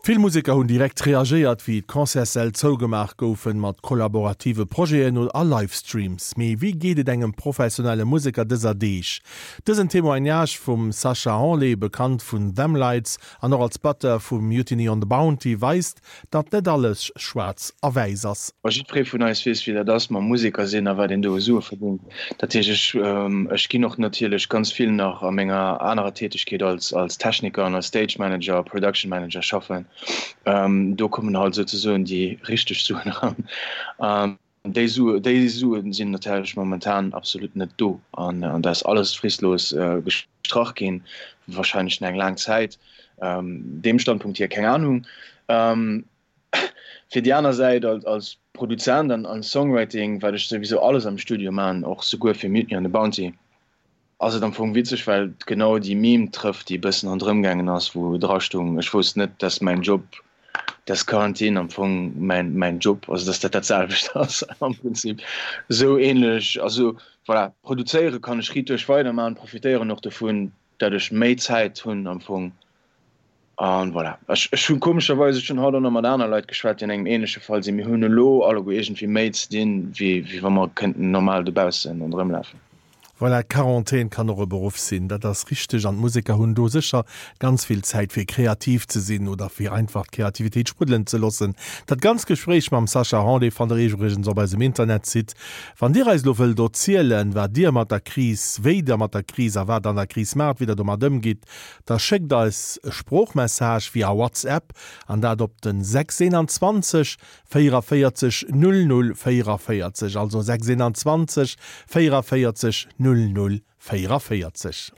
Vill Museker hunn direkt reagéiert, wéi d'Concertssäll zougemaach goufen, mat kollaborative Projeten a Livestreams. Mee wéi geet et engem professionelle Museker dëser Deeg? Dësen Témoignage vum Sacha Hanlé, bekannt vun Them Lights an och als Batteur vu Mutiny on the Bounty, weist, datt net alles schwaarz a wäiss ass. Ma jiddweree vun eis weess, wéi dat ass mam Museker sinn a wat een do u Sue verdéngt. Dat heescht, ech, ech ginn och natierlech ganz vill nach a menger anerer Tätegkeet als, als Techniker an als Stage Manager, Production Manager schaffen. Do kommen halt souzesoen déi richteg Suen eran. Déi Sue, déi Sue sinn natierlech momentan absolut net do an dat ass alles fristlos gestrach ginn, wahrscheinlech nach eng laang Zäit. Deem Standpunkt hier, keng Ahnung. Fir déi aner Säit als, als Produzent an als Songwriting, wat ech souwisou alles am Studio man, och souguer fir Mutiny on the Bounty, ass et am Fong witzeg, well et genau déi Meme trëfft, déi e bëssen ronderëm gaangen ass, wou dra stoung, ech wousst net, dass mäin Job, dass Quarantine am Fong mäin, mäin Job, also dass dat dat selwecht ass am Prinzip, esou ähnlech. Also voilà, produzéiere kann ech riit duerch weidermachen, profitéieren och dovun, dat ech méi Zäit hunn am Fong. An voilà. Ech, ech hunn komescherweis, ech hunn haut och nach mat aner Leit geschwat, déi an engem ähnleche Fall sinn, mir hunn elo alleguer iergendwéi méi ze dinn, wéi, wéi wa mer kënnten normal dobaussen ronderëmlafen. Voilà, Quarantän kann och e Beruff sinn, dat ass richteg. An d'Museker hunn do sécher ganz vill Zäit fir kreativ ze sinn oder fir einfach d'Kreativitéit spruddelen ze loossen. Dat ganzt Gespréich mam Sacha Hanlé fannt der iwwregens op eisem Internetsite. Wann Dir eis elo wëllt erzielen, wat Dir mat der Kris, wéi Der mat der Kris a wat an der Kris maacht, wéi Der domat ëmgitt, da schéckt eis e Sproochmessage via WhatsApp an dat op den 621 44 00 44, also 6 21 44 00 44.